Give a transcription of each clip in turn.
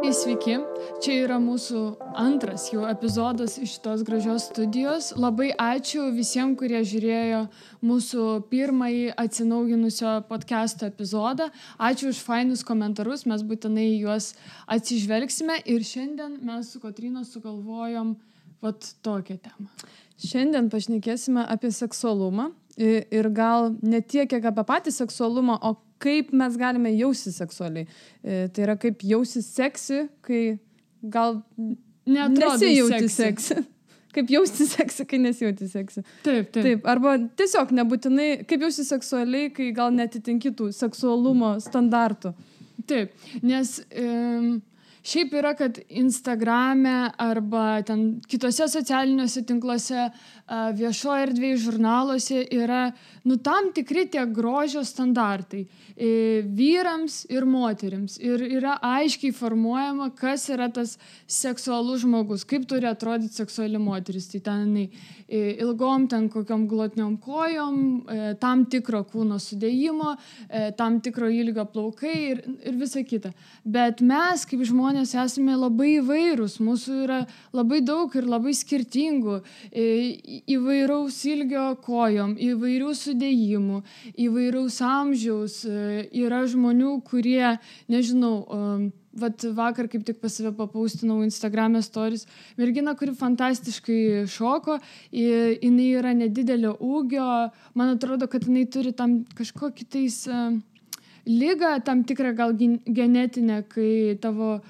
Sveiki, čia yra mūsų antras jau epizodas iš šitos gražios studijos. Labai ačiū visiems, kurie žiūrėjo mūsų pirmąjį atsinauginusio podcast'o epizodą. Ačiū už fainus komentarus, mes būtinai juos atsižvelgsime ir šiandien mes su Kotryna sugalvojom tokią temą. Šiandien pašnekėsime apie seksualumą ir gal ne tiek, kiek apie patį seksualumą, o kaip mes galime jaustis seksualiai. Tai yra kaip jaustis seksi, kai gal nesijauti seksi. Kaip jaustis seksi, kai nesijauti seksi. Taip. Arba tiesiog nebūtinai, kaip jaustis seksualiai, kai gal netitinki tų seksualumo standartų. Taip, nes šiaip yra, kad Instagrame arba ten kitose socialiniuose tinkluose, viešoje erdvėje, žurnaluose yra tam tikri tie grožio standartai vyrams ir moterims. Ir yra aiškiai formuojama, kas yra tas seksualus žmogus, kaip turi atrodyti seksuali moteris. Tai ten ilgom, ten kokiom glotniom kojom, tam tikro kūno sudėjimo, tam tikro ilgio plaukai ir visa kita. Bet mes kaip žmonės esame labai įvairūs, mūsų yra labai daug ir labai skirtingų, įvairaus ilgio kojom, įvairių sudėjimų, įvairaus amžiaus. Yra žmonių, kurie, nežinau, vakar kaip tik pas save papaustinau Instagram'e stories, mergina, kuri fantastiškai šoko, jinai yra nedidelio ūgio, man atrodo, kad jinai turi tam kažkokį tais ligą, tam tikrą gal genetinę, kai tavo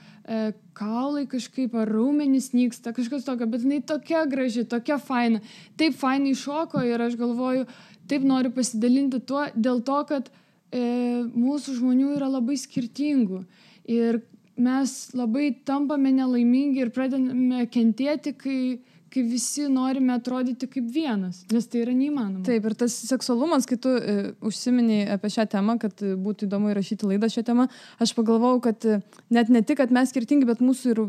kaulai kažkaip ar raumenys nyksta, kažkas tokio, bet jinai tokia graži, tokia faina, taip fainai šoko ir aš galvoju, taip noriu pasidalinti tuo, dėl to, kad mūsų žmonių yra labai skirtingų ir mes labai tampame nelaimingi ir pradedame kentėti, kai visi norime atrodyti kaip vienas, nes tai yra neįmanoma. Taip, ir tas seksualumas, kai tu užsiminiai apie šią temą, kad būtų įdomu įrašyti laidą šią temą, aš pagalvojau, kad net ne tik, kad mes skirtingi, bet mūsų ir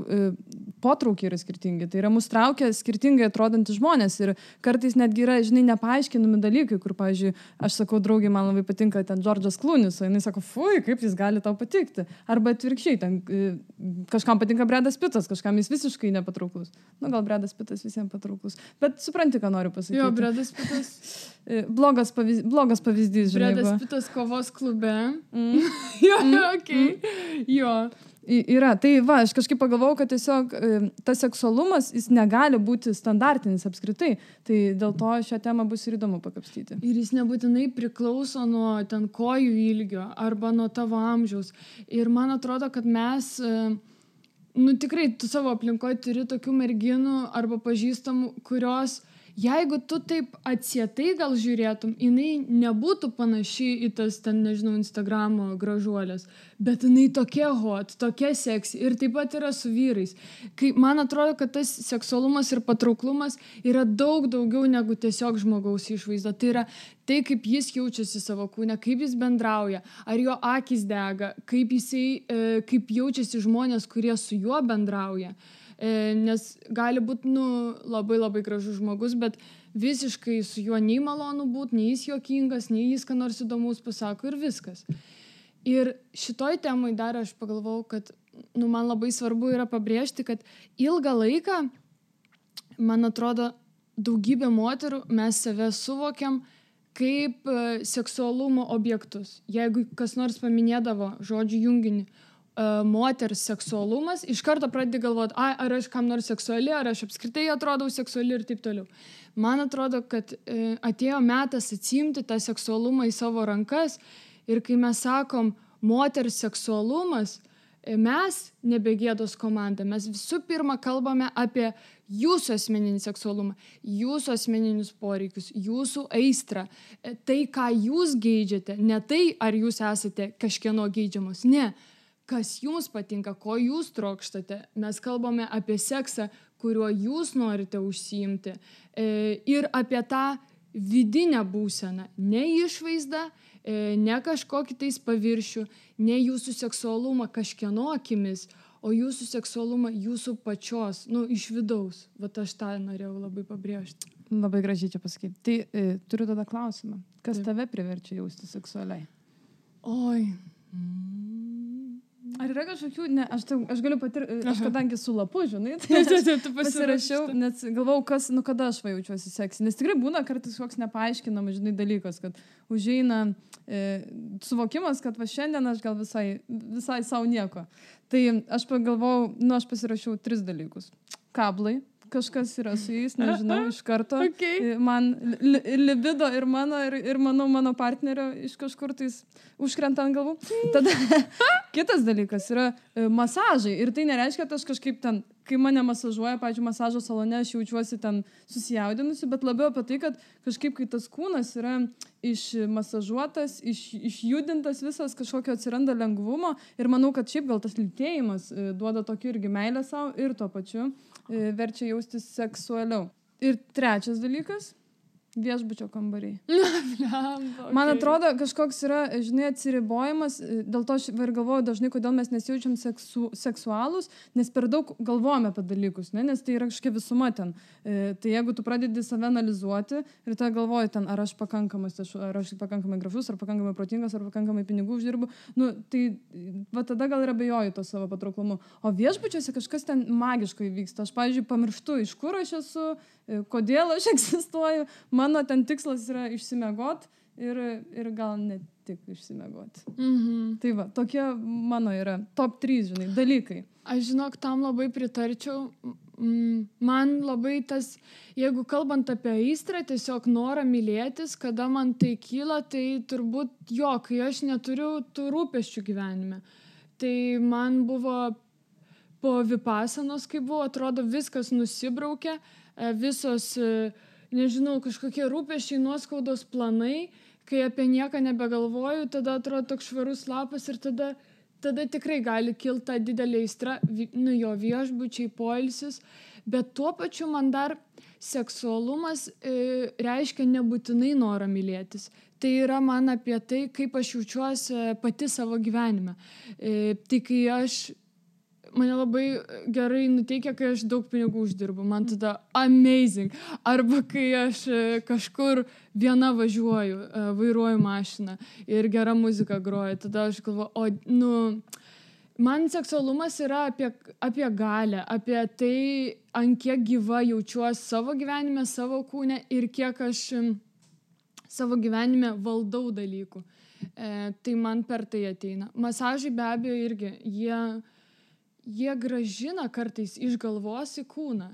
potraukiai yra skirtingi. Tai yra mus traukia skirtingai atrodantys žmonės ir kartais netgi yra, nepaaiškinami dalykai, kur, pavyzdžiui, aš sakau, draugiai, man labai patinka ten Džordžas Klūnis, o jinai sako, fui, kaip jis gali tau patikti. Arba atvirkščiai, ten kažkam patinka Bredas Pitas, kažkam jis visiškai nepatrauklus. Gal Bredas Pitas visiems patrauklus. Bet supranti, ką noriu pasakyti. Jo, Bredas Pitas. blogas pavyzdys, žinai. Bredas Pitas kovos klube. Jo. Yra. Tai aš kažkaip pagalvojau, kad tiesiog tas seksualumas, jis negali būti standartinis apskritai. Tai dėl to šią temą bus ir įdomu pakapstyti. Ir jis nebūtinai priklauso nuo ten kojų ilgio arba nuo tavo amžiaus. Ir man atrodo, kad mes tikrai tu savo aplinkoje turi tokių merginų arba pažįstamų, kurios, jeigu tu taip atsietai gal žiūrėtum, jinai nebūtų panaši į tas ten, nežinau, Instagramo gražuolės, bet jinai tokia hot, tokia seksi ir taip pat yra su vyrais. Kai man atrodo, kad tas seksualumas ir patrauklumas yra daug daugiau negu tiesiog žmogaus išvaizda. Tai yra tai, kaip jis jaučiasi savo kūne, kaip jis bendrauja, ar jo akys dega, kaip jaučiasi žmonės, kurie su juo bendrauja. Nes gali būti labai labai gražus žmogus, bet visiškai su juo nei malonu būti, nei jis juokingas, nei jis ką nors įdomus pasako ir viskas. Ir šitoj temai dar aš pagalvojau, kad man labai svarbu yra pabrėžti, kad ilgą laiką, man atrodo, daugybė moterų mes save suvokiam kaip seksualumo objektus. Jeigu kas nors paminėdavo žodžių junginį moters seksualumas, iš karto pradedi galvoti, ar aš kam nors seksuali, ar aš apskritai atrodau seksuali ir taip toliau. Man atrodo, kad atėjo metas atsiimti tą seksualumą į savo rankas ir kai mes sakom moters seksualumas, mes nebegėdos komanda, mes visų pirma kalbame apie jūsų asmeninį seksualumą, jūsų asmeninius poreikius, jūsų aistrą, tai, ką jūs geidžiate, ne tai, ar jūs esate kažkieno geidžiamos, ne. Kas jums patinka, ko jūs trokštate. Mes kalbame apie seksą, kuriuo jūs norite užsiimti ir apie tą vidinę būseną, ne išvaizdą, ne kažkokį tais paviršių, ne jūsų seksualumą kažkieno akimis, o jūsų seksualumą jūsų pačios, iš vidaus. Aš tą norėjau labai pabrėžti. Labai gražiai čia pasakyti. Tai turiu tada klausimą. Kas tave priverčia jausti seksualiai? Oi. Ar yra kažkokių, ne, aš galiu patirti, aš kadangi su lapu, žinai, Tu pasirašiau, nes galvau, kada aš jaučiuosi seksy. Nes tikrai būna kartais koks nepaaiškinamas, žinai, dalykas, kad užeina suvokimas, kad va šiandien aš gal visai savo nieko. Tai aš pagalvojau, aš pasirašiau 3 dalykus. Kablai. Kažkas yra su jais, nežinau, iš karto. Okay. Man libido ir mano partnerio iš kažkur tais užkrenta ant galvų. Tada kitas dalykas yra masažai. Ir tai nereiškia, kad aš kažkaip ten, kai mane masažuoja, pavyzdžiui, masažo salone, aš jaučiuosi ten susijaudinusi, bet labiau apie tai, kad kažkaip, kai tas kūnas yra išmasažuotas, išjudintas visas, kažkokio atsiranda lengvumo. Ir manau, kad šiaip gal tas lytėjimas duoda tokį irgi meilę savo ir tuo pačiu verčia jaustis seksualiau. Ir 3 dalykas - viešbučio kambariai. Man atrodo, kažkoks yra, žinai, atsiribojimas, dėl to aš ir galvoju dažnai, kodėl mes nesijaučiam seksualūs, nes per daug galvojame apie dalykus, ne? Nes tai yra kažkokia visuma ten. Tai jeigu tu pradedi save analizuoti ir tada galvoji ten, ar aš pakankamai gražus, ar pakankamai protingas, ar pakankamai pinigų uždirbu, tai va tada gal ir abejoju to savo patrauklumu. O viešbučiuose kažkas ten magiškai vyksta. Aš, pavyzdžiui, pamirštu, iš kur aš esu, kodėl aš egzistuoju. Mano ten tikslas yra išsimiegot ir gal ne tik išsimiegot. Tai va, tokie mano yra top 3, žinai, dalykai. Aš žinok, tam labai pritarčiau. Man labai tas, jeigu kalbant apie aistrą, tiesiog norą mylėtis, kada man tai kyla, tai turbūt kai aš neturiu tų rūpesčių gyvenime. Tai man buvo po vipasanos, kai buvo, atrodo, viskas nusibraukė, visos, nežinau, kažkokie rūpesčiai, nuoskaudos planai, kai apie nieką nebegalvoju, tada atrodo toks švarus lapas ir tada tikrai gali kilti ta didelė aistra, jo viešbučiai, poilsis, bet tuo pačiu man dar seksualumas reiškia nebūtinai norą mylėtis. Tai yra man apie tai, kaip aš jaučiuosi pati savo gyvenime. Tai kai mane labai gerai nuteikia, kai aš daug pinigų uždirbu. Man tada amazing. Arba kai aš kažkur viena važiuoju, vairuoju mašiną ir gera muzika groja. Tada aš galvoju, man seksualumas yra apie galią, apie tai, ant kiek gyva jaučiuosi savo gyvenime, savo kūne ir kiek aš savo gyvenime valdau dalykų. Tai man per tai ateina. Masažai be abejo irgi, jie gražina kartais iš galvos į kūną.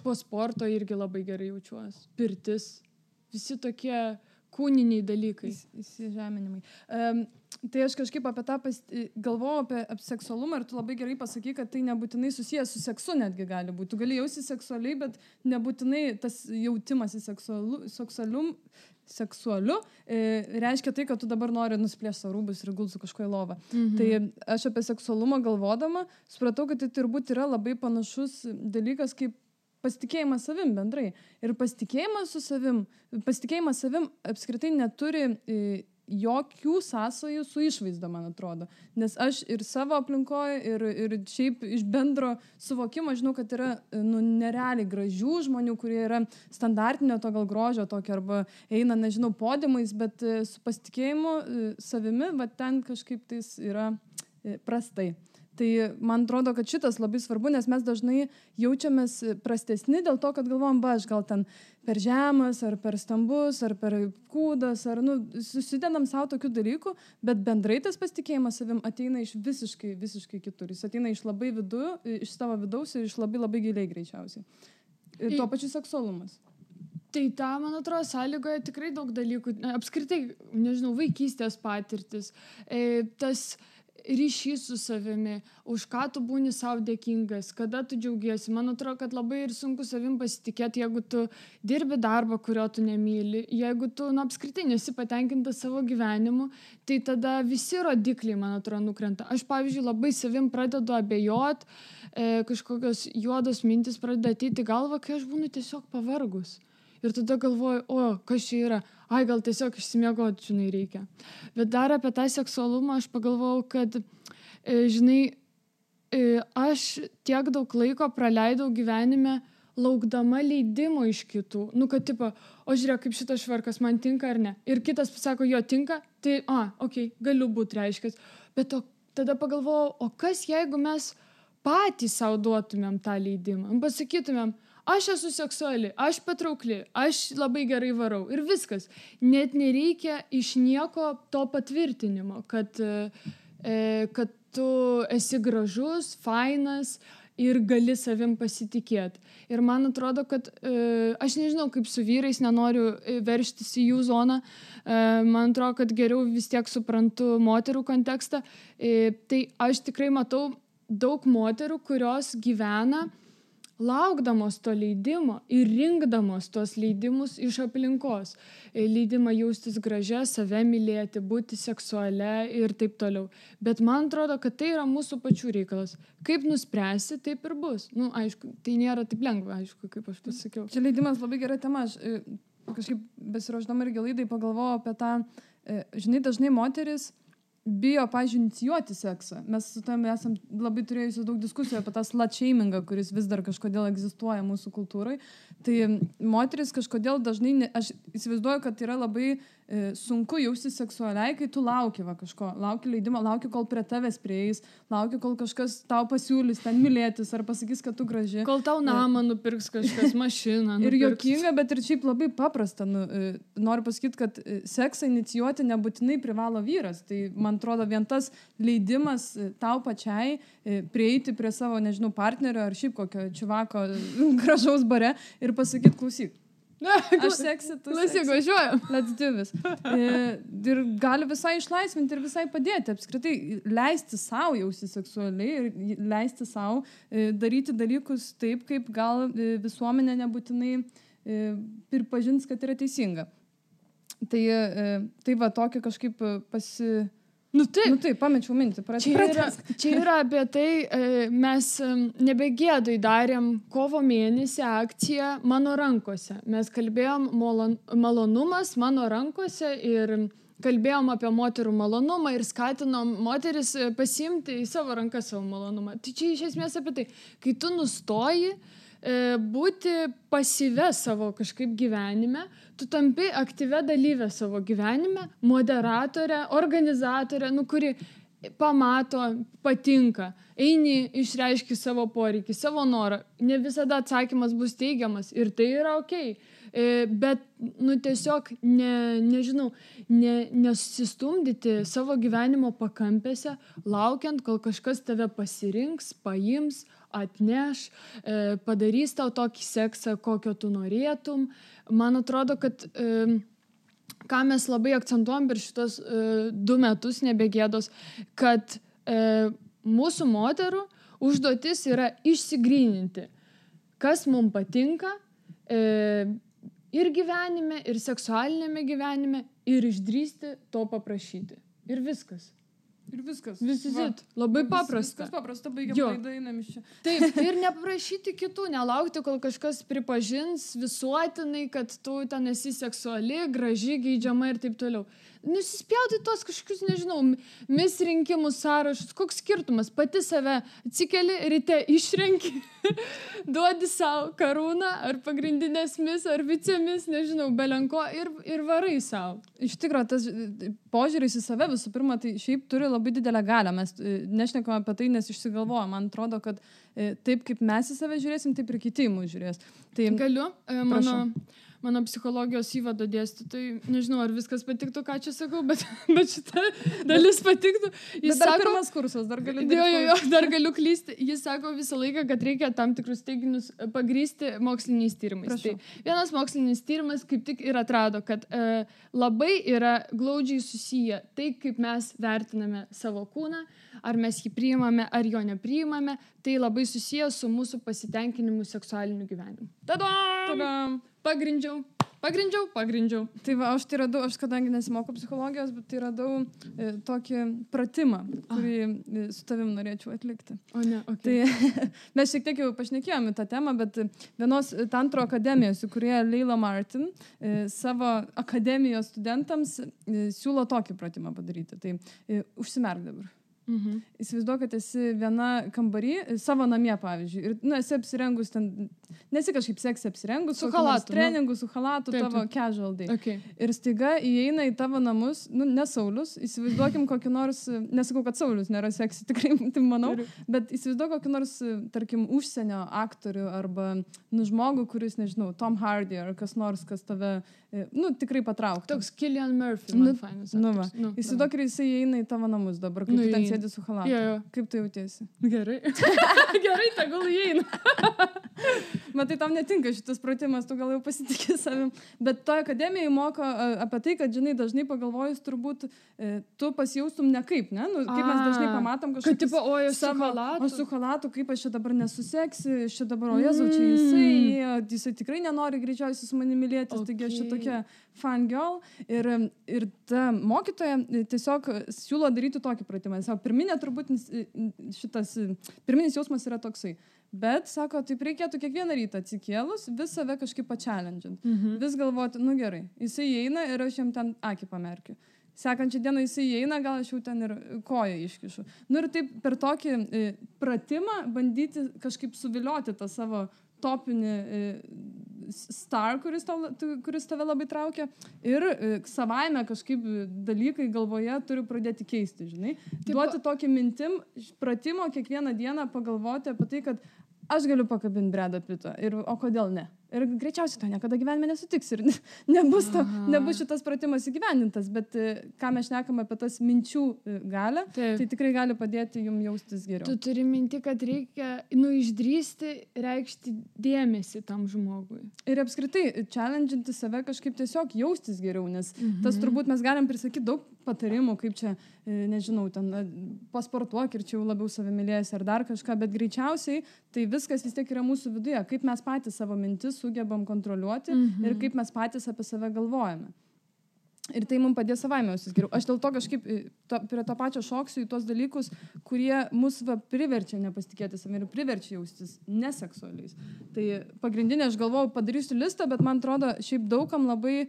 Po sporto irgi labai gerai jaučiuosi. Pirtis. Visi tokie kūniniai dalykai. Įsižeminimai. Tai aš kažkaip apie tą galvojau apie seksualumą ir tu labai gerai pasakai, kad tai nebūtinai susijęs su seksu netgi gali būti. Tu gali jausti seksualiai, bet nebūtinai tas jautimas į seksualiu reiškia tai, kad tu dabar nori nusplėšti savo rūbus ir gulti su kažkuo į lovą. Tai aš apie seksualumą galvodama supratau, kad tai turbūt yra labai panašus dalykas kaip pasitikėjimas savim bendrai. Ir pasitikėjimas savim apskritai neturi jokių sąsajų su išvaizda, man atrodo. Nes aš ir savo aplinkoje, ir šiaip iš bendro suvokimo žinau, kad yra nerealiai gražių žmonių, kurie yra standartinio to gal grožio tokio, arba eina, nežinau, podiumais, bet su pasitikėjimu savimi, va ten kažkaip tais yra prastai. Tai man atrodo, kad šitas labai svarbu, nes mes dažnai jaučiamės prastesni dėl to, kad galvom, aš gal ten per žemas, ar per stambus, ar per kūdas, ar susidedam savo tokių dalykų, bet bendrai tas pasitikėjimas savim ateina iš visiškai kitur. Jis ateina iš labai iš savo vidaus ir iš labai giliai greičiausiai. Ir tuo pačiu seksualumas. Tai ta, man atrodo, sąlygoje tikrai daug dalykų. Apskritai, nežinau, vaikystės patirtis, tas ryšys su savimi, už ką tu būni savo dėkingas, kada tu džiaugiesi. Man atrodo, kad labai ir sunku savim pasitikėti, jeigu tu dirbi darbą, kurio tu nemyli, jeigu tu apskritai nesi patenkintas savo gyvenimu, tai tada visi rodikliai, man atrodo, nukrenta. Aš, pavyzdžiui, labai savim pradedu abejot, kažkokios juodos mintis pradeda ateiti į galvą, kai aš būnu tiesiog pavargus. Ir tada galvoju, kas čia yra? Gal tiesiog išsimiegoti, žinai, reikia. Bet dar apie tą seksualumą aš pagalvojau, kad, žinai, aš tiek daug laiko praleidau gyvenime laukdama leidimo iš kitų. Kad tipo, žiūrėk, kaip šitas švarkas man tinka ar ne. Ir kitas pasako, jo tinka, tai, galiu būti reiškęs. Bet tada pagalvojau, o kas jeigu mes patys savo duotumėm tą leidimą? Pasakytumėm, aš esu seksuali, aš patraukli, aš labai gerai varau ir viskas. Net nereikia iš nieko to patvirtinimo, kad tu esi gražus, fainas ir gali savim pasitikėti. Ir man atrodo, kad aš nežinau, kaip su vyrais, nenoriu verštis į jų zoną, man atrodo, kad geriau vis tiek suprantu moterų kontekstą. Tai aš tikrai matau daug moterų, kurios gyvena laukdamos to leidimo ir rinkdamos tos leidimus iš aplinkos. Leidimą jaustis gražia, save mylėti, būti seksualia ir taip toliau. Bet man atrodo, kad tai yra mūsų pačių reikalas. Kaip nuspręsi, taip ir bus. Aišku, tai nėra taip lengva, aišku, kaip aš pasakiau. Čia leidimas labai gera tema. Aš kažkaip besiruošdama irgi laidai pagalvojau apie tą, žinai, dažnai moteris bijo, pavyzdžiui, inicijuoti seksą. Mes su tam esam labai turėjusi daug diskusijų apie tą slut-shamingą, kuris vis dar kažkodėl egzistuoja mūsų kultūrai. Tai moteris kažkodėl dažnai, aš įsivaizduoju, kad yra labai sunku jausti seksualiai, kai tu lauki kažko, lauki leidimo, lauki, kol prie tavęs prieis, lauki, kol kažkas tau pasiūlys ten mylėtis ar pasakys, kad tu graži. Kol tau namą nupirks kažkas, mašiną nupirks. Ir juokinga, bet ir šiaip labai paprasta. Noriu pasakyti, kad seksą inicijuoti nebūtinai privalo vyras. Tai man atrodo, vien tas leidimas tau pačiai prieiti prie savo, nežinau, partnerio ar šiaip kokio čivako gražaus bare ir pasakyti, klausyk. Aš seksi, tu seksi. Važiuojam. Let's do this. Ir gali visai išlaisvinti ir visai padėti. Apskritai, leisti savo jausti seksualiai ir leisti savo daryti dalykus taip, kaip gal visuomenė nebūtinai pripažins, kad yra teisinga. Tai va, tokį kažkaip taip, pamečiau mintį. Čia yra apie tai, mes nebegėdui darėm kovo mėnesį akciją Mano rankose. Mes kalbėjom malonumas mano rankose ir kalbėjom apie moterų malonumą ir skatinom moteris pasiimti į savo rankas savo malonumą. Tai čia iš esmės apie tai, kai tu nustoji būti pasyvę savo kažkaip gyvenime, tu tampi aktyvę dalyvę savo gyvenime, moderatorę, organizatorę, kuri pamato, patinka, eini, išreiški savo poreikį, savo norą. Ne visada atsakymas bus teigiamas ir tai yra okei. Bet, tiesiog, nesusistumdyti savo gyvenimo pakampėse, laukiant, kol kažkas tave pasirinks, paims, atneš, padarys tau tokį seksą, kokio tu norėtum. Man atrodo, kad ką mes labai akcentuojam per šitos 2 metus nebegėdos, kad mūsų moterų užduotis yra išsigryninti, kas mums patinka ir gyvenime, ir seksualinėme gyvenime, ir išdrįsti to paprašyti. Ir viskas. Ir viskas. Visit. Labai paprasta. Viskas paprasta, baigiam laidą, einam iš čia. Taip, ir neprašyti kitų, nelaukti, kol kažkas pripažins visuotinai, kad tu ten esi seksuali, graži, geidžiama ir taip toliau. Nusispjauti tos kažkokius, nežinau, mis rinkimų sąrašus, koks skirtumas, pati save atsikeli, ryte išrenki, duodi savo karūną, ar pagrindinės mis, ar vicemis, nežinau, belenko ir varai savo. Iš tikrųjų, tas požiūris į save visų pirma, tai šiaip turi labai didelę galią. Mes nešnekame apie tai, nes išsigalvojame. Man atrodo, kad taip kaip mes į save žiūrėsim, taip ir kiti į mus žiūrės. Tai, galiu, mano psichologijos įvado dėstytojai, nežinau, ar viskas patiktų, ką čia sakau, bet šita dalis patiktų. Jis dar sako, pirmas kursas, dar galiu dirbti. Dar galiu klysti. Jis sako visą laiką, kad reikia tam tikrus teiginius pagrįsti moksliniais tyrimais. Tai vienas mokslinis tyrimas kaip tik ir atrado, kad labai yra glaudžiai susiję tai, kaip mes vertiname savo kūną, ar mes jį priimame, ar jo nepriimame, tai labai susiję su mūsų pasitenkinimu seksualiniu gyvenimu. Tadam! Pagrindžiau. Tai va, aš kadangi nesimokau psichologijos, bet tai radau tokį pratimą, kurį su tavim norėčiau atlikti. O ne, okei. Tai mes šiek tiek jau pašnekėjome tą temą, bet vienos tantro akademijos, kurie Leila Martin savo akademijos studentams siūlo tokį pratimą padaryti. Tai užsimerk dabar. Įsivaizduok, kad esi viena kambarį, savo namie, pavyzdžiui, ir, esi apsirengus ten, nesi kažkaip seksi apsirengus, su chalatu, treningu, su chalatu, tavo casual day. Okay. Ir staiga įeina į tavo namus, ne Saulius, įsivaizduokim kokį nors, nesakau, kad Saulius nėra seksi, tikrai, tai manau, bet įsivaizduok kokį nors, tarkim, užsienio aktorių arba, žmogų, kuris, nežinau, Tom Hardy ar kas nors, kas tave, tikrai patrauktų. Toks Cillian Murphy, man fainas. Įsivaizduok, ir jisai įeina į tavo namus dabar, kaip tu ten sėdi su chalatu. Kaip tu jautiesi? Gerai. Gerai, tegul įeina. Matai, tam netinka šitas pratimas, tu gal jau pasitikė savim. Bet toje akademijoje moko apie tai, kad, žinai, dažnai pagalvojus, turbūt tu pasijaustum nekaip, ne? Kaip mes dažnai pamatom kažkokį... Kad tipo, su chalatu. O su chalatu, kaip aš čia dabar nesuseksi, aš čia dabar, o Jėzau, čia jisai tikrai nenori greičiausiai su manimi mylėtis, taigi aš čia tokia fan girl. Ir ta mokytoja tiesiog siūlo daryti tokį pratimą. Pirminė turbūt pirminis jausmas yra toksai. Bet, sako, taip reikėtų kiekvieną rytą atsikėlus, vis save kažkaip pačelendžint. Vis galvoti, gerai, jisai įeina ir aš jam ten akį pamerkiu. Sekančią dieną jisai įeina, gal aš jau ten ir koją iškišu. Ir taip per tokį pratimą bandyti kažkaip suvilioti tą savo topinį star, kuris tave labai traukia. Ir savaime kažkaip dalykai galvoje turiu pradėti keisti, žinai. Duoti tokį mintim, pratimo kiekvieną dieną pagalvoti apie tai, kad aš galiu pakabinti Bredą Pittą. O kodėl ne? Ir greičiausiai to niekada gyvenime nesutiks ir nebus šitas pratimas įgyvendintas, bet ką mes šnekam apie tas minčių galią, tai tikrai gali padėti jums jaustis geriau. Tu turi minti, kad reikia išdrįsti, reikšti dėmesį tam žmogui. Ir apskritai, challenginti save kažkaip tiesiog jaustis geriau, nes tas turbūt mes galim prisakyti daug patarimų, kaip čia, nežinau, ten pasportuok ir čia jau labiau savimylėjęs ar dar kažką, bet greičiausiai tai viskas vis tiek yra mūsų viduje, kaip mes patys savo mintis sugebam kontroliuoti ir kaip mes patys apie save galvojame. Ir tai mums padės savaime jaustis geriau. Aš dėl to kažkaip prie to pačio šoksiu į tos dalykus, kurie mus priverčia nepasitikėti savimi ir priverčia jaustis neseksualiais. Tai pagrindinė, aš galvojau, padarysiu listą, bet man atrodo, šiaip daugam labai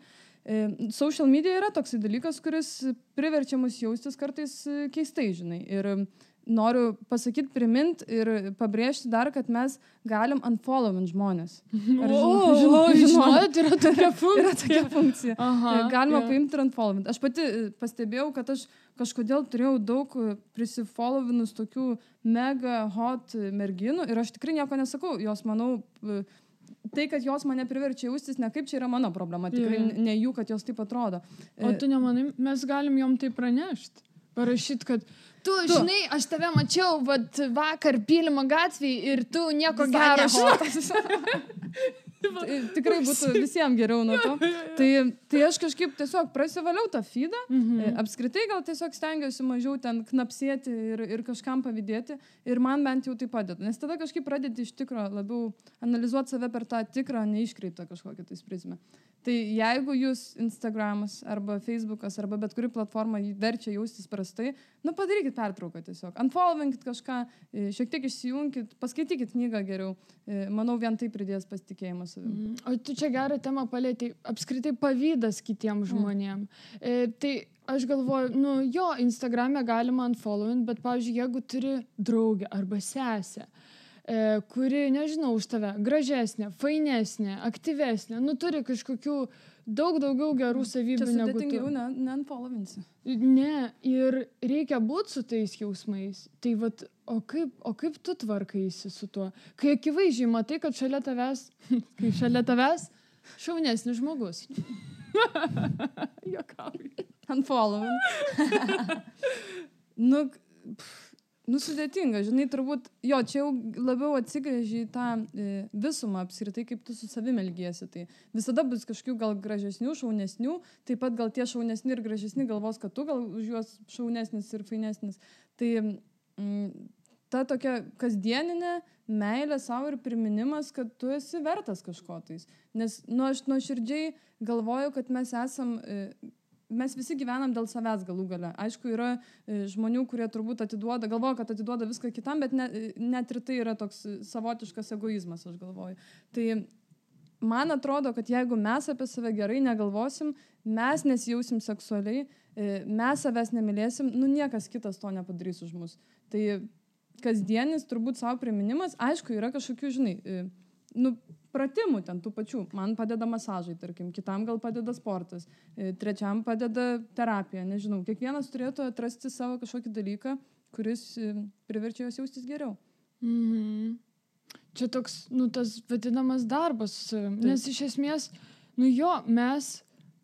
social media yra toksai dalykas, kuris priverčia mus jaustis kartais keistai, žinai. Ir noriu pasakyti, primint ir pabrėžti dar, kad mes galim unfollowint žmonės. Žinot, yra tokia funkcija. Yra tokia funkcija. Galima paimti ir unfollowint. Aš pati pastebėjau, kad aš kažkodėl turėjau daug prisifollowinus tokių mega hot merginų ir aš tikrai nieko nesakau. Jos, manau, tai, kad jos mane priverčia jaustis, ne kaip čia yra mano problema, tikrai ne jų, kad jos taip atrodo. O tu nemanai, mes galim jom tai pranešti? Parašyti, kad tu, žinai, aš tave mačiau vakar Pylimo gatvėje ir tu nieko gero. Tikrai būtų visiems geriau nuo to. Tai aš kažkaip tiesiog prasivaliau tą feedą. Apskritai gal tiesiog stengiuosi mažiau ten knapsėti ir kažkam pavydėti. Ir man bent jau tai padeda. Nes tada kažkaip pradėti iš tikro labiau analizuoti save per tą tikrą, neiškreiptą kažkokią tais prizmę. Tai jeigu jūs Instagramas arba Facebookas arba bet kuri platforma verčia jaustis prastai, padarykit pertrauką tiesiog. Unfollowinkit kažką, šiek tiek išsijunkit, paskaitykit knygą geriau. Manau, vien tai pridės pasitikėjimą savimi. O tu čia gerą temą palėtei, apskritai pavydas kitiems žmonėm. Tai aš galvoju, Instagrame galima unfollowint, bet, pavyzdžiui, jeigu turi draugę arba sesę, kuri, nežinau, už tave gražesnė, fainesnė, aktyvesnė, turi kažkokių daug daugiau gerų savybių negu tu. Čia sudėtingiau neunfollowinsi. Ne, ir reikia būti su tais jausmais. Tai o kaip tu tvarkaisi su tuo? Kai akivaizdžiai matai, kad šalia tavęs šaunesnis žmogus. Juokauju. Unfollowing. Sudėtinga, žinai, turbūt, čia jau labiau atsigrėži į tą visumą apskritai, kaip tu su savimi elgiesi. Tai visada bus kažkokių gal gražesnių, šaunesnių, taip pat gal tie šaunesni ir gražesni galvos, kad tu gal už juos šaunesnis ir fainesnis. Tai ta tokia kasdieninė meilė savo ir priminimas, kad tu esi vertas kažko tais. Nes aš nuoširdžiai galvoju, kad mes visi gyvenam dėl savęs galų gale. Aišku, yra žmonių, kurie turbūt galvoja, kad atiduoda viską kitam, bet net ir tai yra toks savotiškas egoizmas, aš galvoju. Tai man atrodo, kad jeigu mes apie save gerai negalvosim, mes nesijausim seksualiai, mes savęs nemylėsim, niekas kitas to nepadarys už mus. Tai kasdienis turbūt savo priminimas, aišku, yra kažkokių, žinai, pratimų ten tų pačių. Man padeda masažai, tarkim, kitam gal padeda sportas, trečiam padeda terapija, nežinau. Kiekvienas turėtų atrasti savo kažkokį dalyką, kuris priverčia jos jaustis geriau. Čia toks, tas vadinamas darbas, nes iš esmės, mes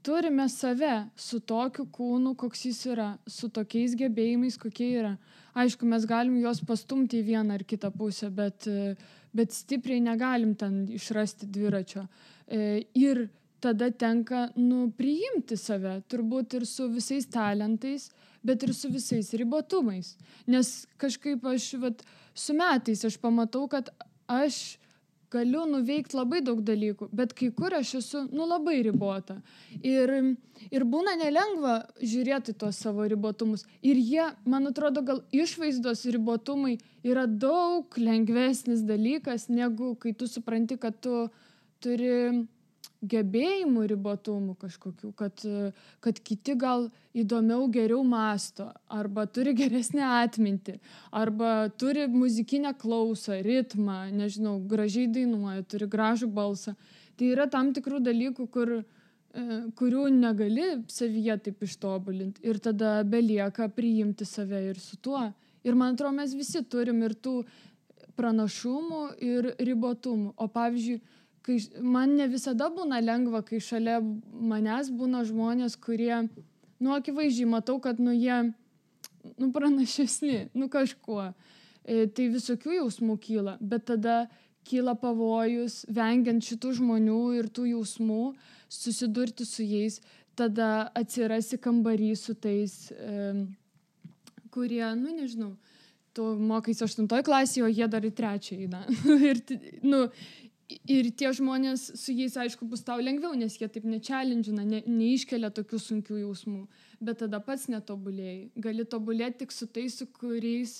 turime save su tokiu kūnu, koks jis yra, su tokiais gebėjimais, kokie yra. Aišku, mes galim juos pastumti į vieną ar kitą pusę, bet stipriai negalim ten išrasti dviračio. Ir tada tenka, priimti save, turbūt ir su visais talentais, bet ir su visais ribotumais. Nes kažkaip su metais aš pamatau, kad aš galiu nuveikti labai daug dalykų, bet kai kur aš esu, labai ribota. Ir būna nelengva žiūrėti tuos savo ribotumus. Ir jie, man atrodo, gal išvaizdos ribotumai yra daug lengvesnis dalykas, negu kai tu supranti, kad tu turi gebėjimų ribotumų kažkokių, kad kiti gal įdomiau, geriau mąsto, arba turi geresnę atmintį, arba turi muzikinę klausą, ritmą, nežinau, gražiai dainuoja, turi gražų balsą. Tai yra tam tikrų dalykų, kurių negali savyje taip ištobulinti. Ir tada belieka priimti save ir su tuo. Ir man atrodo, mes visi turim ir tų pranašumų ir ribotumų. O pavyzdžiui, man ne visada būna lengva, kai šalia manęs būna žmonės, kurie, akivaizdžiai matau, kad, jie, pranašesni, kažkuo. Tai visokių jausmų kyla, bet tada kyla pavojus, vengiant šitų žmonių ir tų jausmų, susidurti su jais, tada atsirasi kambarį su tais, kurie, nežinau, tu mokais 8 klasėje, o jie dar į 3 eina. Ir tie žmonės, su jais, aišku, bus tau lengviau, nes jie taip nečelendžina, neiškelia tokių sunkių jausmų. Bet tada pats netobulėjai. Gali tobulėti tik su tais, su kuriais,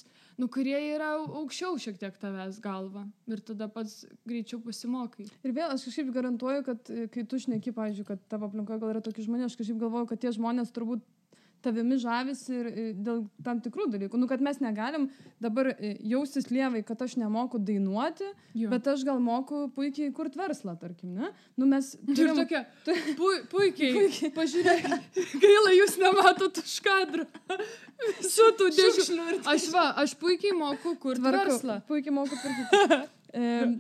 kurie yra aukščiau šiek tiek tavęs galva. Ir tada pats greičiau pasimokai. Ir vėl aš kažkaip garantuoju, kad kai tu šneki, pavyzdžiui, kad tavo aplinkoje gal yra tokie žmonės, aš kažkaip galvoju, kad tie žmonės turbūt tavimi žavisi ir dėl tam tikrų dalykų. Kad mes negalim dabar jaustis lievai, kad aš nemoku dainuoti, bet aš gal moku puikiai kurti verslą, tarkim, ne? Mes turim tokia, puikiai. Pažiūrėk, gaila, jūs nematot už kadrą. Su tų dėžių. Aš puikiai moku kurti verslą. Puikiai moku kurti.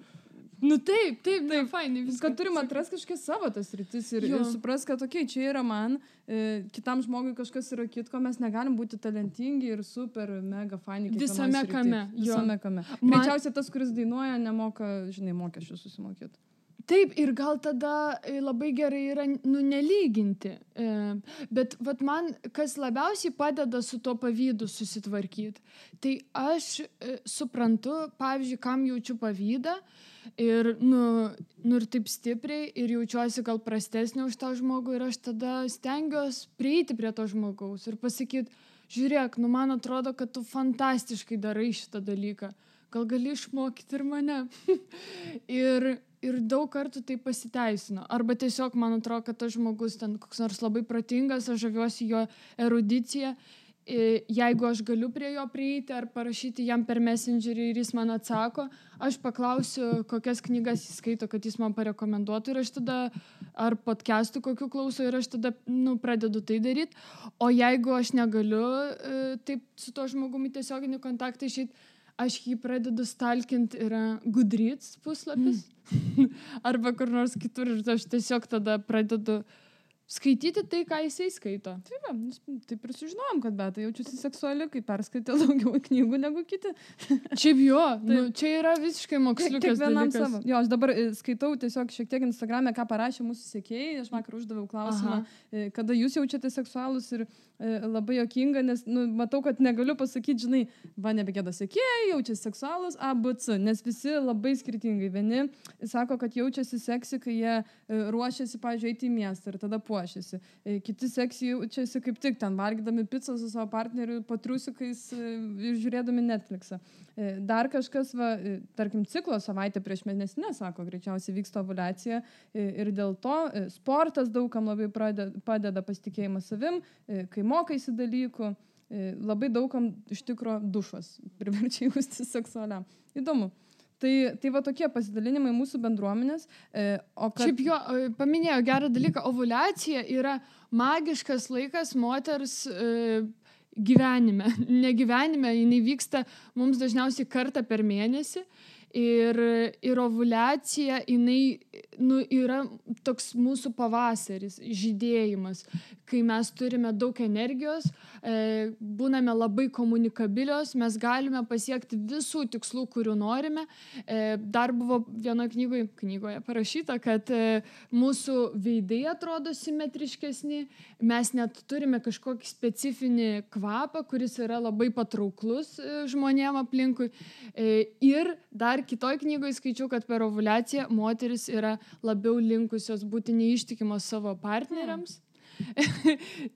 Taip, fainai. Kad turim atrasti kažkas savo tas rytis ir supras, kad čia yra man, kitam žmogui kažkas yra kitko, mes negalim būti talentingi ir super, mega faini. Visame kame. Greičiausiai tas, kuris dainuoja, nemoka, mokesčių susimokėti. Taip, ir gal tada labai gerai yra, nelyginti. Bet man, kas labiausiai padeda su tuo pavydu susitvarkyti, tai aš suprantu, pavyzdžiui, kam jaučiu pavydą ir, ir taip stipriai ir jaučiuosi gal prastesnė už tą žmogų ir aš tada stengiuosi prieiti prie to žmogaus ir pasakyti, žiūrėk, man atrodo, kad tu fantastiškai darai šitą dalyką. Gal gali išmokyti ir mane. Ir daug kartų tai pasiteisino. Arba tiesiog man atrodo, kad tas žmogus ten koks nors labai protingas, aš žaviuosi jo erudicija. Jeigu aš galiu prie jo prieiti ar parašyti jam per Messengerį ir jis man atsako, aš paklausiu, kokias knygas jis skaito, kad jis man parekomenduotų ir aš tada, ar podcastų kokių klauso ir aš tada, pradedu tai daryti. O jeigu aš negaliu taip su to žmogumi tiesioginį kontaktą išeiti, aš jį pradedu stalkinti, yra Goodreads puslapis arba kur nors kitur ir aš tiesiog tada pradedu skaityti tai, ką jisai skaito. Taip ir sužinojom, kad Beata jaučiasi seksuali, kai perskaitė daugiau knygų negu kiti. Šiaip čia yra visiškai moksliukas dalykas. Savo. Aš dabar skaitau tiesiog šiek tiek Instagrame, ką parašė mūsų sekėjai. Aš vakar uždaviau klausimą, kada jūs jaučiate seksualus ir labai juokinga, nes matau, kad negaliu pasakyti, žinai, va nebegėda sekėjai, jaučiasi seksualus ABC, nes visi labai skirtingai. Vieni sako, kad jaučiasi seksi, kai jie ruošiasi, pavyzdžiui, eiti į miestą ir tada puošiasi. Kiti seksi jaučiasi kaip tik ten, valgydami pizzą su savo partneriu, patriusikais ir žiūrėdami Netflixą. Dar kažkas, tarkim, ciklo savaitę prieš mėnesinę, sako, greičiausiai vyksta ovuliacija ir dėl to sportas daugam labai padeda pasitikėjimas savim, kai mokaisi dalykų, labai daugam iš tikro dušas priverčia jausti seksualiam. Įdomu. Tai va tokie pasidalinimai mūsų bendruomenės. Šiaip jo, paminėjo gerą dalyką, ovuliacija yra magiškas laikas moters gyvenime. Ne gyvenime, jinai vyksta mums dažniausiai kartą per mėnesį ir ovuliacija, jinai yra toks mūsų pavasaris, žydėjimas, kai mes turime daug energijos, būname labai komunikabilios, mes galime pasiekti visų tikslų, kurių norime. Dar buvo vienoje knygoje parašyta, kad mūsų veidai atrodo simetriškesni, mes net turime kažkokį specifinį kvapą, kuris yra labai patrauklus žmonėm aplinkui. Ir dar kitoj knygoje skaičiau, kad per ovuliaciją moteris yra labiau linkusios būti neištikimos savo partneriams.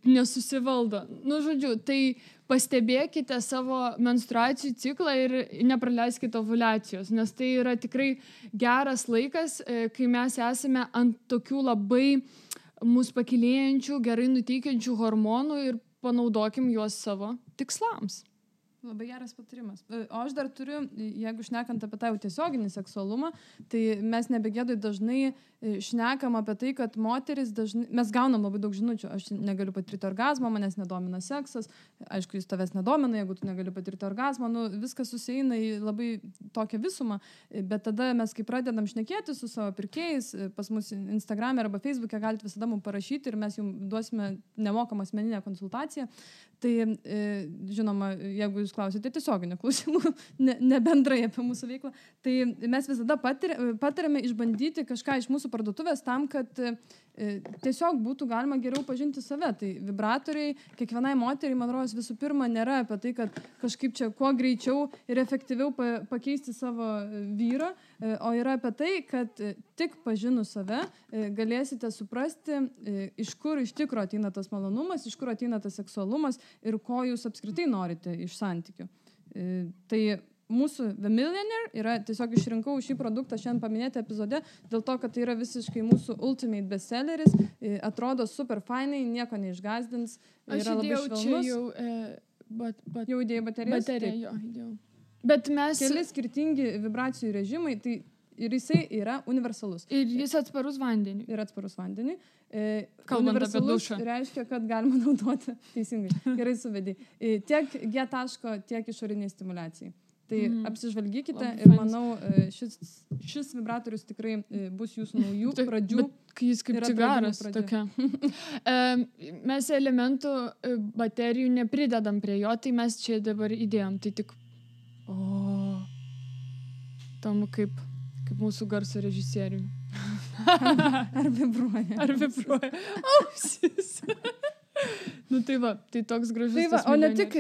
Nesusivaldo. Žodžiu, tai pastebėkite savo menstruacijų ciklą ir nepraleiskite ovuliacijos, nes tai yra tikrai geras laikas, kai mes esame ant tokių labai mus pakilėjančių, gerai nuteikiančių hormonų ir panaudokim juos savo tikslams. Labai geras patarimas. O aš dar turiu, jeigu šnekant apie tą jau tiesioginį seksualumą, tai mes nebegėdai dažnai šnekam apie tai, kad moteris dažnai, mes gaunam labai daug žinučių, aš negaliu patirti orgazmą, manęs nedomina seksas, aišku, jis tavęs nedomina, jeigu tu negali patirti orgazmą, viskas susieina į labai tokią visumą, bet tada mes, kai pradedam šnekėti su savo pirkėjais, pas mus Instagram'e arba Facebook'e galite visada mums parašyti ir mes jums duosime nemokamą asmeninę konsultaciją. Tai, žinoma, jeigu jūs klausite tiesioginių klausimų, ne bendrai apie mūsų veiklą, tai mes visada patariame išbandyti kažką iš mūsų parduotuvės tam, kad tiesiog būtų galima geriau pažinti save. Tai vibratoriai kiekvienai moteriai, man rodos, visų pirma nėra apie tai, kad kažkaip čia kuo greičiau ir efektyviau pakeisti savo vyrą, o yra apie tai, kad tik pažinus save galėsite suprasti, iš kur iš tikro ateina tas malonumas, iš kur ateina tas seksualumas ir ko jūs apskritai norite iš santykių. Tai mūsų The Millionaire yra, tiesiog išrinkau šį produktą šiandien paminėti epizode, dėl to, kad tai yra visiškai mūsų ultimate bestselleris, atrodo super fainai, nieko neišgazdins, yra labai švelnus. Aš įdėjau čia jau įdėjai baterijas? Bateriją, jo, įdėjau. Bet mes... Keli skirtingi vibracijų režimai, tai ir jisai yra universalus. Ir jis atsparus vandeniui. Ir atsparus vandeniui. Kalbant apie dušą. Reiškia, kad galima naudoti, teisingai, gerai suvedį, tiek G taško, tiek išoriniai stimulacijai. Tai apsižvalgykite ir manau, šis vibratorius tikrai bus jūsų naujų pradžių. Bet jis kaip cigaras tokia. Mes elementų baterijų nepridedam prie jo, tai mes čia dabar įdėjom. Tai tik... Tam kaip mūsų garso režisieriui. Ar vibruoja? Ar vibruoja? Ausis. Tai va, tai toks gražus. Tai va, o ne tik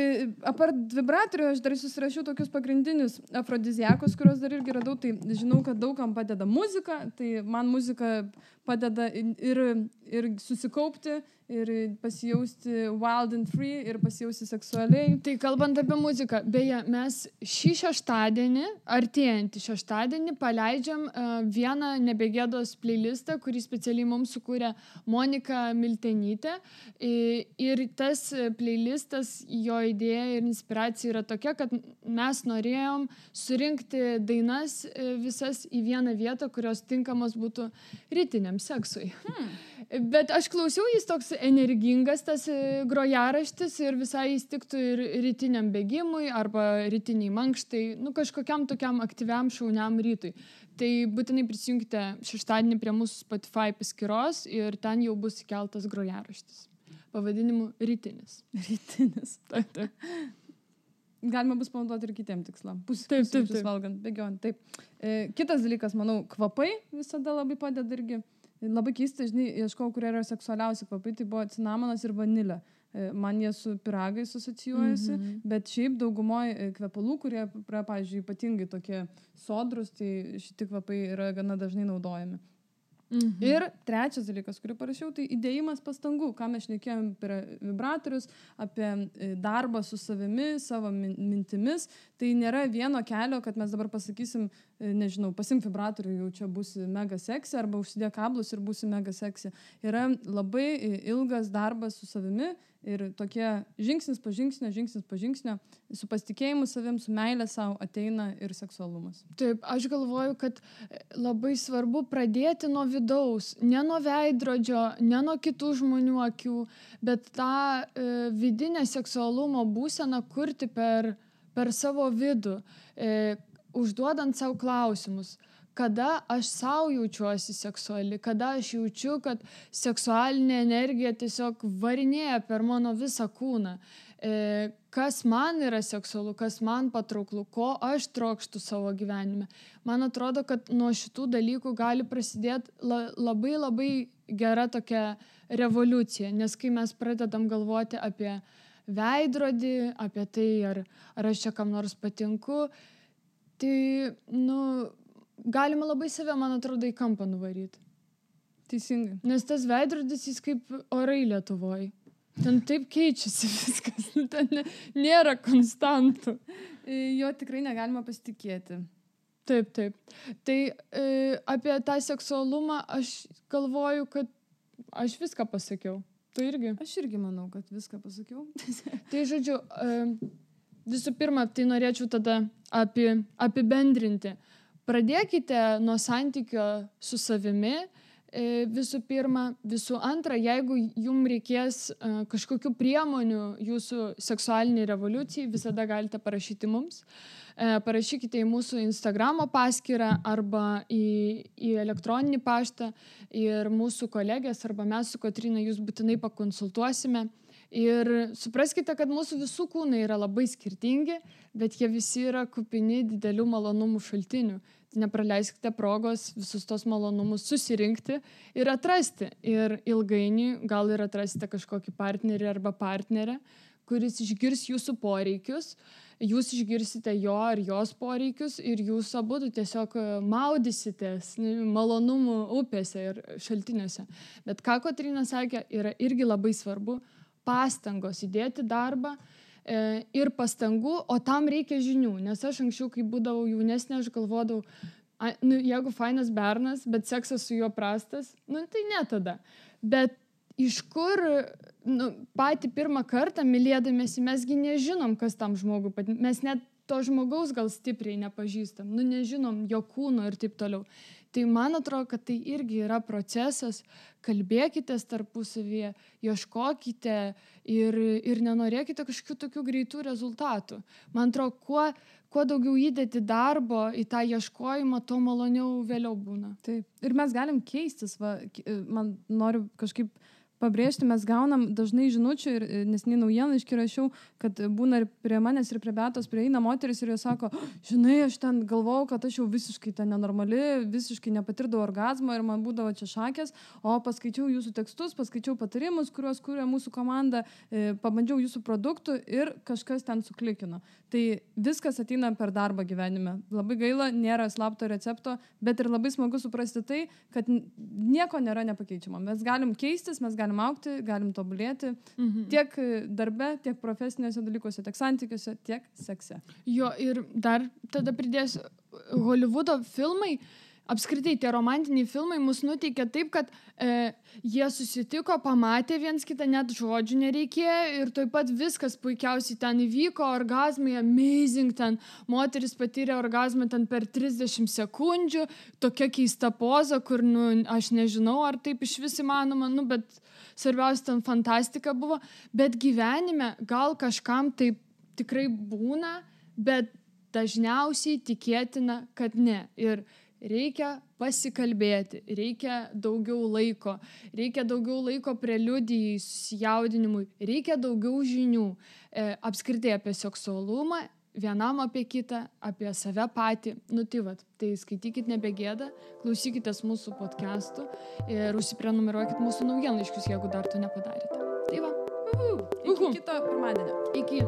apart vibratorių, aš dar susirašiau tokius pagrindinius afrodiziakus, kuriuos dar irgi radau, tai žinau, kad daugam padeda muzika, tai man muzika padeda ir susikaupti, ir pasijausti wild and free, ir pasijausti seksualiai. Tai kalbant apie muziką, beje, mes šį šeštadienį, artėjantį šeštadienį, paleidžiam vieną nebegėdos playlistą, kurį specialiai mums sukūrė Monika Miltenytė. Ir tas playlistas, jo idėja ir inspiracija yra tokia, kad mes norėjom surinkti dainas visas į vieną vietą, kurios tinkamos būtų rytiniam seksui. Bet aš klausiau, jis toks energingas, tas grojaraštis, ir visai jis tiktų ir rytiniam bėgimui arba rytiniai mankštai, kažkokiam tokiam aktyviam šauniam rytui. Tai būtinai prisijungite šeštadienį prie mūsų Spotify paskyros ir ten jau bus įkeltas grojaraštis. Pavadinimu rytinis. Rytinis. Taip. Galima bus panaudoti ir kitiem tikslam. Taip. Valgant, bėgiojant. Taip. Kitas dalykas, manau, kvapai visada labai padeda irgi. Labai keista, žinai, ieškau, kurie yra seksualiausi kvapai, tai buvo cinamonas ir vanilė. man jie su pyragais asocijuojasi, bet šiaip daugumoje kvepalų, kurie, pavyzdžiui, ypatingai tokie sodrus, tai šitie kvapai yra gana dažnai naudojami. Ir trečias dalykas, kurį parašiau, tai įdėjimas pastangų, ką mes šnekėjom per vibratorius, apie darbą su savimi, savo mintimis. Tai nėra vieno kelio, kad mes dabar pasakysim, nežinau, pasimk vibratorių, jau čia būsi mega seksi, arba užsidėk kablus ir būsi mega seksi. Yra labai ilgas darbas su savimi ir tokie žingsnis po žingsnio, su pasitikėjimu savim, su meilė savo ateina ir seksualumas. Taip, aš galvoju, kad labai svarbu pradėti nuo vidaus, ne nuo veidrodžio, ne nuo kitų žmonių akių, bet tą vidinę seksualumo būseną kurti per savo vidų, užduodant savo klausimus. Kada aš savo jaučiuosi seksuali, kada aš jaučiu, kad seksualinė energija tiesiog varinėja per mano visą kūną. Kas man yra seksualu, kas man patrauklu, ko aš trokštu savo gyvenime. Man atrodo, kad nuo šitų dalykų gali prasidėti labai gera tokia revoliucija, nes kai mes pradedam galvoti apie veidrodį, apie tai, ar aš čia kam nors patinku, tai, galima labai save, man atrodo, į kampą nuvaryti. Teisingai. Nes tas veidrodis, jis kaip orai Lietuvoje. Ten taip keičiasi viskas, ten nėra konstantų. Jo tikrai negalima pasitikėti. Taip. Tai apie tą seksualumą aš galvoju, kad aš viską pasakiau. Tu irgi? Aš irgi manau, kad viską pasakiau. Tai žodžiu, visų pirma, tai norėčiau tada apibendrinti. Pradėkite nuo santykio su savimi, visų pirma. Visų antra, jeigu jums reikės kažkokių priemonių jūsų seksualiniai revoliucijai, visada galite parašyti mums. Parašykite į mūsų Instagramo paskyrą arba į elektroninį paštą ir mūsų kolegės arba mes su Kotryna jūs būtinai pakonsultuosime. Ir supraskite, kad mūsų visų kūnai yra labai skirtingi, bet jie visi yra kupini didelių malonumų šaltinių. Tai nepraleiskite progos visus tos malonumus susirinkti ir atrasti. Ir ilgainiui gal ir atrasite kažkokį partnerį arba partnerę, kuris išgirs jūsų poreikius, jūs išgirsite jo ar jos poreikius ir jūs abudu tiesiog maudysitės malonumų upėse ir šaltiniuose. Bet ką Kotryna sakė, yra irgi labai svarbu pastangos, įdėti darbą ir pastangų, o tam reikia žinių. Nes aš anksčiau, kai būdavau jaunesnė, aš galvodavau, jeigu fainas bernas, bet seksas su juo prastas, tai ne tada. Bet iš kur patį pirmą kartą mylėdamiesi, mesgi nežinom, kas tam žmogui patinka. Mes net to žmogaus gal stipriai nepažįstam, nežinom jo kūno ir taip toliau. Tai man atrodo, kad tai irgi yra procesas, kalbėkitės tarpusavyje, ieškokite ir nenorėkite kažkokių tokių greitų rezultatų. Man atrodo, kuo daugiau įdėti darbo į tą ieškojimą, tuo maloniau vėliau būna. Taip. Ir mes galim keistis, man noriu kažkaip pabrėžti, mes gaunam dažnai žinučių ir neseniai naujienlaiškį rašiau, kad būna ir prie manęs, ir prie Beatos prieina moteris ir jos sako, žinai, aš ten galvojau, kad aš jau visiškai ten nenormali, visiškai nepatirdavau orgazmo ir man būdavo čia šakės, o paskaičiau jūsų tekstus, paskaičiau patarimus, kuriuos kūrė mūsų komanda, pabandžiau jūsų produktų ir kažkas ten suklikino. Tai viskas ateina per darbą gyvenime. Labai gaila, nėra slapto recepto, bet ir labai smagu suprasti tai, kad nieko nėra nepakeičiama. Mes galim keistis, mes galim augti, galim tobulėti tiek darbe, tiek profesiniuose dalykuose, tiek santykiuose, tiek sekse. Jo, ir dar tada pridėsiu, Holivudo filmai, apskritai tie romantiniai filmai mus nuteikia taip, kad jie susitiko, pamatė viens kitą, net žodžių nereikėjo ir taip pat viskas puikiausiai ten įvyko, orgazmai, amazing, ten moteris patyrė orgazmą ten per 30 sekundžių, tokia keista poza, kur, aš nežinau, ar taip iš vis įmanoma, bet svarbiausia, ten fantastika buvo, bet gyvenime gal kažkam taip tikrai būna, bet dažniausiai tikėtina, kad ne. Ir reikia pasikalbėti, reikia daugiau laiko preliudijai, susijaudinimui, reikia daugiau žinių apskritai apie seksualumą, vienam apie kitą, apie save patį. Tai skaitykit Nebegėda, klausykitės mūsų podcastų ir užsiprenumeruokit mūsų naujienlaiškius, jeigu dar to nepadarėte. Tai va. Iki kito pirmadienio. Iki.